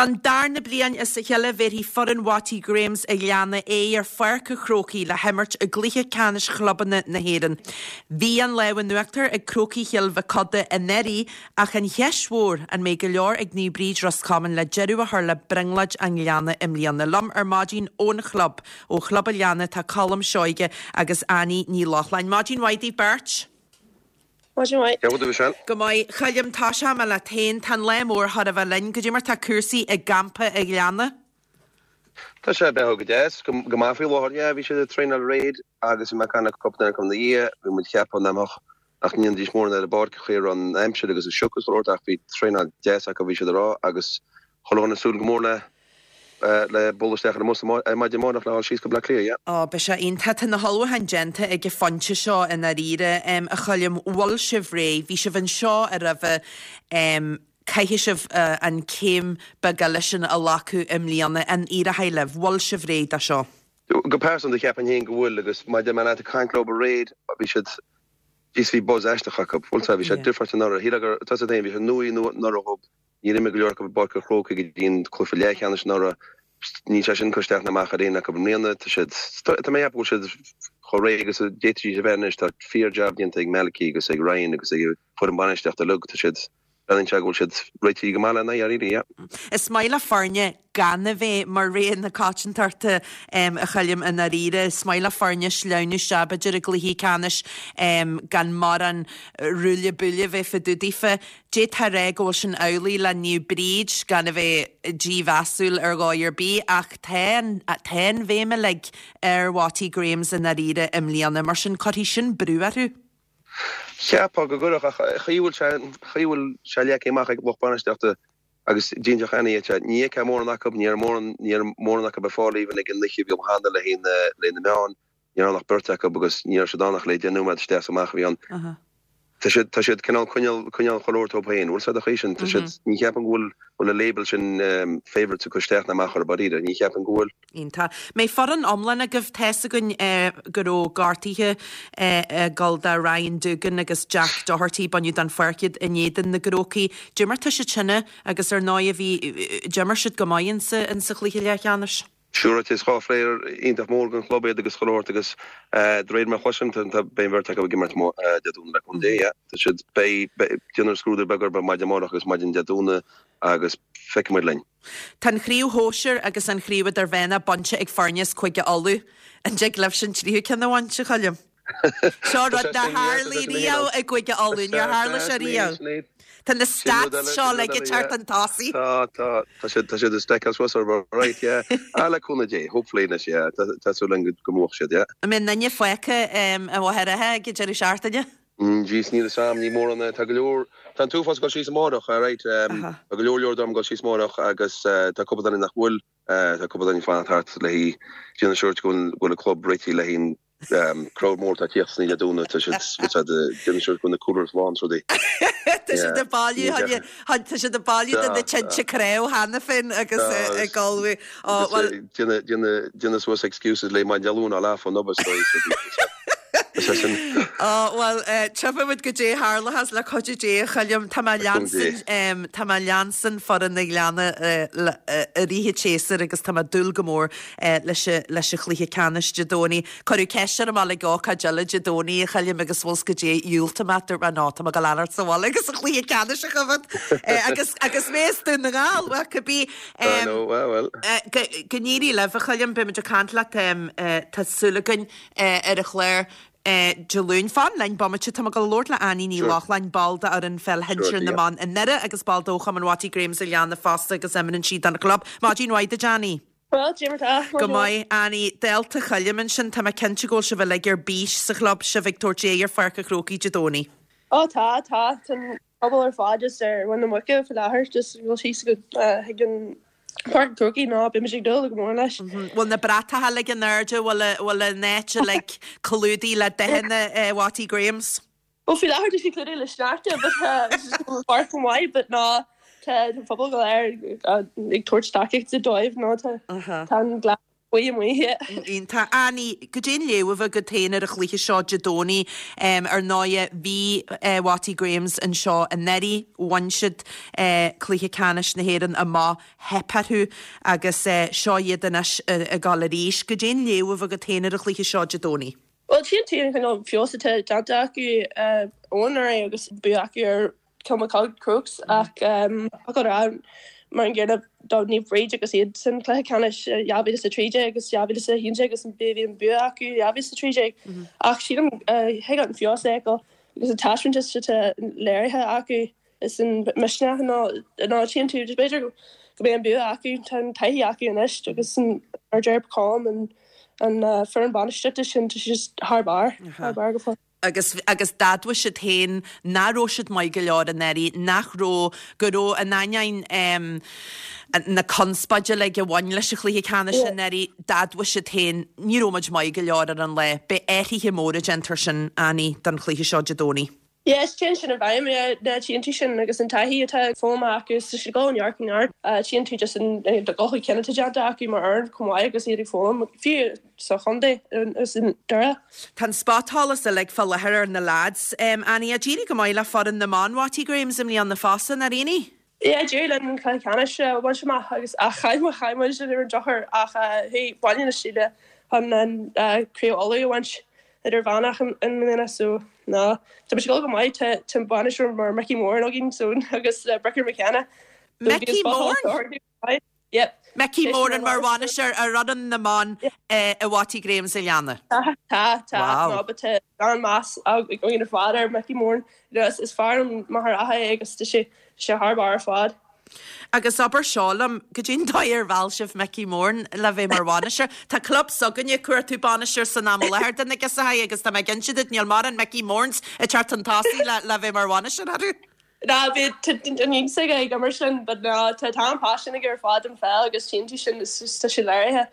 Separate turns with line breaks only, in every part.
Don darna bliain as a chéile bhéarfaidh foireann Watty Grahams a' Ghleanna aghaidh ar Pháirc a' Chrócaigh le himirt i gcluiche ceannais chlubanna na hÉireann. Bhí an lámh in uachtar ag Crócaigh Chill Mhic Coda anuraidh ach an cheist mhór, an mbeidh go leor ag Naomh Bríd Ros Comáin le deireadh a chur le brionglóid an Ghleanna i mbliana? Liom ar maidin ón chlub, ó Chlub a' Ghleanna tá Colm Seoige agus Annie Ní Lochlainn. Maidin mhaith daoibh beirt.
Maidin mhaith.
Cén chaoi a bhfuil tú, Michelle?
Go maith. A Choilm, tosóidh mé leat féin. Tá an lá mór chóir a bheith linn. Goidé mar tá cúrsaí i gcampa a' Ghleanna?
Tá sé ag beathú go deas, go maith faoi láthair. Yeah, bhí siad ag traenáil aréir agus bhí mé ag caint le cúpla duine acu ina dhiaidh. Bhí muid ag ceapadh nach mbeadh, nach ndéanfaidís mórán ar an bpáirc an chaoi a raibh an aimsir agus an sioc is chuile shórt ach bhí traenáil deas acu bhí siad ag rá agus chuile dhuine ag súil go mór le le bualadh isteach ar an mbus ar maidin amárach le dhul síos go Bleá Cliath, yeah.
Ó, beidh sé iontach. Tá na hullmhúcháin déanta ag an phointe seo i ndáiríre, a Choilm. Bhfuil sibh réidh? Bhí sibh anseo roimhe. Caithfidh sibh an céim beag eile sin a ghlacadh i mbliana. An éireoidh libh? Bhfuil sibh réidh do seo?
Go pearsanta, cheapfainn féin go bhfuil agus mar a deir mé leat ag caint leo aréir, bhí siad, jeez bhí buzz aisteach acu. Bhfuil 's a'd, bhí sé difriúil anuraidh. Shílfeá gur, tá 's a'd féin, bhí sé nuaí anuraidh dhób. Níor imir go leor acu i bPáirc an Chrócaigh go dtí an cluiche leathcheannais anuraidh. Níl sé sin ag cur isteach ná amach ar éinne acu i mbliana. Tá siad, tá mé ag ceapadh go bhfuil siad chomh réidh agus a d'fhéadfaidís a bheith anois. Tá fíor-jab déanta ag Malachy agus ag Ryan agus ag an foireann bainistíochta uilig. Tá siad, breathnaíonn sé go bhfuil siad réitithe go maith lena aghaidh, really, yeah.
Is maith le foirne gan a bheith mar rogha na coitiantachta, a Choilm, i ndáiríre. Is maith le foirne sleamhnú isteach, b'fhéidir, i gcluichí ceannais gan mórán ruaille buaille a bheith fá dtaobh daofa. D'fhéadfá a rá go bhfuil sin amhlaidh le Naomh Bríd, gan a bheith dímheasúil ar dhóigh ar bith, ach tá an, tá an bhéim uilig ar Watty Grahams i ndáiríre i mbliana, mar sin cuirfidh sin brú orthu.
Cheapfá go gcuirfeadh, ach an chaoi a bhfuil sé, an chaoi a bhfuil sé leagtha amach ag lucht bainistíochta agus d'inseodh Annie dhuit é, ní fheicfeá mórán acu, ní raibh mórán, ní raibh mórán acu ar fáil even ag an oíche a bhí ann cheana le haghaidh na, le haghaidh na meáin. Ní raibh ann ach beirt acu agus ní raibh siad ann ach le 10 nóiméad isteach is amach a bhí ann. Tá siad, tá siad cineál coinneáil, coinneáil chuile shórt dóibh féin. Bhfuil 's a'd an chaoi sin, tá siad, ní cheapaim go bhfuil, bhfuil an label sin favourites ag cur isteach ná amach orthu dáiríre, ní cheapaim go bhfuil.
Iontach. Mbeidh foireann iomlán agaibh, tá's againn go raibh gortuithe ag dul do Ryan Doogan agus Jack Doherty, baineadh den pháirc iad in éadan na gCrócaigh. Dé mar tá siad sin agus ar ndóigh bhí, d'imir siad go maith insa, insa chluiche leathcheannais.
Siúráilte, is 2 phlayer iontach mór don chlub iad agus chuile shórt agus de réir mar a chloisim, tá, beidh an bheirt acu ag imirt Dé Domhnaigh le cúnamh Dé, yeah. Tá siad, beidh, beidh, déanfar scrúdú beag orthu maidin amárach agus maidin Dé Domhnaigh agus feicfidh muid linn.
Tá an chraobh shóisir agus an chraobh idirmheánach bainte ag foirne as Cúige Uladh. An dtig libhse an tríú ceann a bhaint, a Choilm? Seo rud nár tharlaigh riamh i gCúige Uladh, níor tharla sé riamh. Tá na stats seo uilig ag teacht chun tosaigh.
Tá, tá, tá siad, tá siad ag stackáil suas orthu, right, yeah. Ah, le cúnamh Dé, hopefully anois, yeah, tá, tá súil againn go mbuafadh siad, yeah.
An mbeidh aon duine fágtha i Machaire Rátha ag an deireadh seachtaine?
Jeez, níl 'fhios a'm, ní mórán, tá go leor, tá an t-uafás ag dul síos amárach, alright, tá go leor leor dom ag dul síos amárach agus tá cúpla duine nach bhfuil, tá cúpla duine ag fanacht thart le haghaidh, déanamh siúr go bhfuil an club réitithe le haghaidh an Crowd mór atá ag tíocht san Dé Domhnaigh, tá siad déanamh siúr go bhfuil na coolers lán is rudaí.
Tá siad ag bailiú, tá siad ag bailiú do na tinte craobh cheana féin agus ag ullmhú.
Ó, bhuel. Déanamh suas excuses le maidin Dé Luain á leath fán obair is dóigh.
Ó, bhuel, tchífidh muid goidé a tharlóchas le cuidiú Dé, a Choilm. Tá mé leanstan, tá mé leanstan foireann an Ghleanna i rith an tséasúir agus tá mé ag dúil go mór leis an chluiche ceannais Dé Domhnaigh. Cuireadh ceist orm ag ócáid eile Dé Domhnaigh, a Choilm, agus bhfuil 's goidé, dhiúltaigh mé, dúirt mé no, tá mé ag dul a fhanacht sa bhaile agus an chluiche ceannais a choimhéad. Agus agus mé as Dún na nGall, bhuel, cibé.
I know, well, well.
Go n-éirí libh, a Choilm, beidh muid ag caint leat, tá súil againn, ar an chlár. Dé Luain. Fan linn bomaite, tá mé ag dul a labhairt le Annie Ní Lochlainn, ball d'fhoireann pheil shinsir na mban i nDoire agus ball de Chumann Watty Grahams an Ghleanna fosta agus imríonn sí don chlub. Maidin mhaith duit Annie.
Bhuel, cad é mar tá.
Go maith, Annie. Dálta Choilm ansin, tá mé cinnte go bhfuil sibh uilig ar bís sa chlub, sibh ag tabhairt aghaidh ar Pháirc an Chrócaigh Dé Domhnaigh.
Ó tá, tá. Tá an pobal ar fad just ar mhuin na muice faoi láthair, just ag dul síos go chuig an Páirc an Chrócaigh ná beimid ag dúil go mór leis.
Bhfuil na bratacha uilig in airde, bhfuil an áit uilig clúdaithe le dathanna Watty Grahams?
Bhuel faoi láthair tá sé clúdaithe le sneachta but tá sé chomh maith but ná tá an pobal go léir ag tabhairt tacaíochta dóibh nó tá an gleann. Buí amuigh, yeah.
Iontach. Annie, goidé an léamh a bheadh agat féin ar an chluiche seo Dé Domhnaigh? Ar ndóighe, bhí Watty Grahams anseo anuraidh, bhain siad cluiche ceannais na hÉireann amach, theip orthu agus seo iad anois ag dul arís. Goidé an léamh a bheadh agat féin ar an chluiche seo Dé Domhnaigh?
Bhuel, tchíonn tú an cineál feabhas atá déanta acu ó anuraidh agus bua acu ar Kilmacud Crokes ach ach a rá mar an gcéanna do Naomh Bríd agus iad san cluiche ceannais 2013 agus 2011 agus bhí an bua acu 2013 ach sílim thig an feabhas a fheiceáil agus an taispeántas atá léirithe acu is an misneach nó nó tchíonn tú b'fhéidir go mbeidh an bua acu tá an taithí acu anois agus an mar deir Colm an an foireann bainistíochta sin tá sé thar barr thar barr go fóill.
agus agus d'admhaigh siad féin nach raibh siad maith go leor anuraidh, nach raibh, go raibh, in ainneoin em na conspóide uilig a bhain leis an chluiche ceannais anuraidh, d'admhaigh siad féin, ní raibh muid maith go leor ar an lá. Beidh athruithe móra déanta ansin, Annie, don chluiche seo Dé Domhnaigh.
Yes, téann sin i bhfeidhm, yeah, na tchíonn tú sin agus an taithí atá foghlamtha acu is tá siad ag dul ó neart go neart. Tchíonn tú just an dul chun cinn atá déanta acu mar fhoireann chomh maith agus iad ag foghlaim, fiú sa chontae is i nDoire.
Tá an spotsholas uilig fá láthair ar na leaids. Annie, d'éirigh go maith le foireann na mban Watty Grahams i mbliana fosta, nár éirigh?
Yeah, d'éirigh linn an cluiche ceannais a bhaint amach agus ach chaill muid, chaill muid ar an drochuair ach chuaigh Baile na Síle chun an Craobh Uladh a bhaint idirmheánach i mbliana so ná tá muid ag dul go maith, tá tá bainisteoir mar Mickey Moran againn so agus Bricker McKenna.
Mickey Moran?
Yep.
Mickey Moran mar bhainisteoir ar fhoireann na mban i Watty Grahams a Ghleanna.
Tá, tá, tá. Wow. No, but tá an-mheas againn ar fad ar Mickey Moran. You know, is, is fear ón Machaire Rátha é agus tá sé, tá sé thar barr ar fad.
Agus abair seo liom, goidé an dóigh ar mheall sibh Mickey Moran le bheith mar bhainisteoir? Tá club s'againne ag cuartú bainisteoir san am i láthair do na Giosachai agus tá mé ag inse duit níl mórán Mickey Morans ag teacht chun tosaigh le, le bheith mar bhainisteoir orthu.
Ná bhí an iontas aige ag imirt linn but ná tá tá an paisean aige ar fad don pheil agus tchíonn tú sin is just tá sé léirithe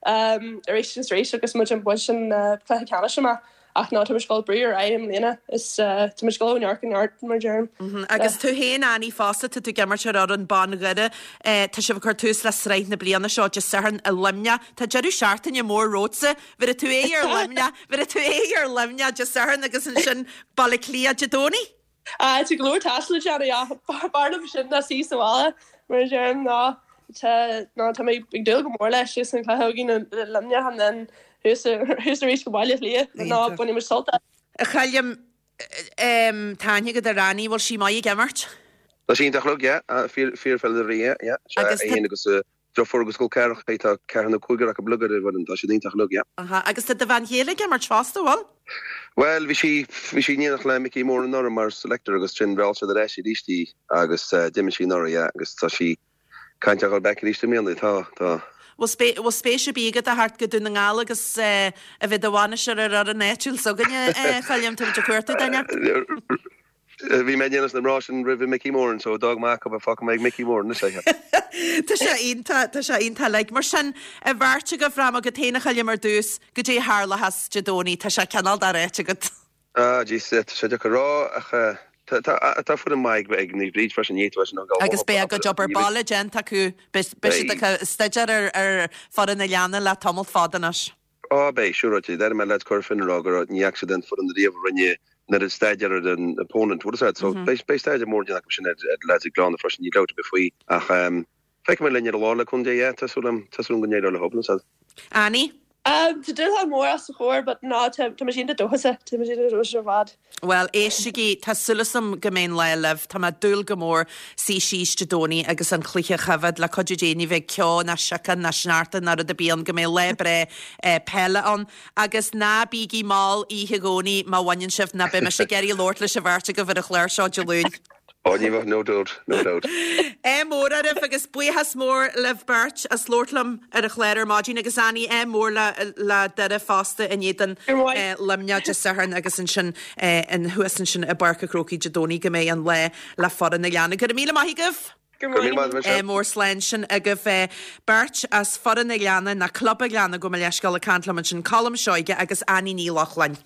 arís agus arís agus muid ag baint an cluiche ceannais amach ach ná tá muid ag dul brú ar aghaidh i mbliana is tá muid ag dul ó neart go neart mar a deirim.
Agus tú féin Annie fosta tá tú ag imirt ar fhoireann ban Dhoire tá sibh ag cur tús le sraith na bliana seo Dé Sathairn i Luimneach tá deireadh seachtaine mór romhatsa bhéarfaidh tú aghaidh ar Luimneach bhéarfaidh tú aghaidh ar Luimneach Dé Sathairn agus ansin Baile Átha Cliath Dé Domhnaigh.
Tá go leor taistil le déanamh ach b'fhearr liom sin ná suí sa bhaile mar a deirim ná tá ná tá mé ag dúil go mór leis agus an cluiche againn i Luimneach and then thuas thuas arís go Baile Átha Cliath ná bainfidh muid sult as.
A Choilm, tá aithne agat ar Annie, bhfuil sí maith ag imirt?
Tá sí iontach uilig, yeah, fíor fíorpheileadóirí, yeah, yeah.
Agus
tá. Í féin agus a deirfiúr agus col ceathracha, tá ceathrar nó cúigear acu uilig ar an bhfoireann, tá siad iontach uilig, yeah.
Aha, agus tá do bhean chéile ag imirt fosta, bhfuil?
Bhuel, bhí sí, bhí sí in éineacht le Mickey Moran anuraidh mar selector agus ansin mheall siad ar ais arís í agus d'imir sí anuraidh, yeah, agus tá sí ag caint ar dhul back arís i mbliana, tá, tá.
Bhfuil spé, bhfuil spéis ar bith agat a theacht go Dún na nGall agus a bheith i do bhainisteoir ar fhoireann áitiúil s'againne, a Choilm, tá muid ag cuartú duine.
Bhí mé in éineacht leis na mná sin roimh Mickey Moran so d'fhág mé acu fágfaidh mé ag Mickey Moran anois é.
Tá sé iontach, tá sé iontach like. Mar sin, an bheirt agaibh, rachaidh mé agat féin a Choilm ar dtús, goidé a tharlóchas Dé Domhnaigh, tá sé cineál doráite agat.
Ah jeez, tá sé deacair a rá ach tá, tá, tá foireann maith ag Naomh Bríd freisin, ní fhéadfá sin a ghabháil
Agus beidh a gcuid obair baile déanta acu, beidh siad ag staidéar ar, ar foireann an Ghleanna le tamall fada anois.
Á, beidh, siúráilte. D'airigh mé leaids Cora Finne ag rá go raibh, ní fhaca siad aon foireann ariamh a rinne an oiread staidéar ar an opponent, bhfuil a fhios agat. So, beidh, beidh staidéar mór déanta acu sin ar, ar leaids an Ghleanna freisin, níl dabht ar bith faoi. Ach, ehm, feicfidh muid linn ar an lá le cúnamh Dé, yeah, tá súil agam, tá súil agam go n-éireoidh leo, bhfuil a fhios agat.
Annie?
Um, tá dúshlán mór os ár gcomhair, but ná, tá, tá muid iontach dóchasach, tá muid iontach dóchasach ar fad.
Bhuel, éistigí, tá súil agam go mbeidh an lá libh. Tá mé ag dúil go mór suí síos Dé Domhnaigh agus an cluiche a choimhéad. Le cuidiú Dé ní bheidh ceo ná siocán ná sneachta ná rud ar bith ann, go mbeidh lá breá peile ann. Agus ná bígí mall oíche Dhomhnaigh má bhaineann sibh, ná beidh mise ag iarraidh labhairt leis an bheirt agaibh ar an chlár seo Dé Luain.
Ó, ní bheadh, no doubt, no doubt.
Ádh mór oraibh agus buíochas mór libh beirt as labhairt liom ar an chlár ar maidin agus Annie, ádh mór le le Doire fosta in éadan Luimneach Dé Sathairn agus ansin thuas ansin i bPáirc an Chrócaigh Dé Domhnaigh go mbeidh an lá le foireann an Ghleanna. Go raibh míle maith agaibh!
Go raibh míle maith agat.
Ádh mór slán sin agaibh beirt as foireann an Ghleanna, nó Club an Ghleanna, gabh mo leithscéal ag caint liom ansin, Colm Seoige agus Annie Ní Lochlainn.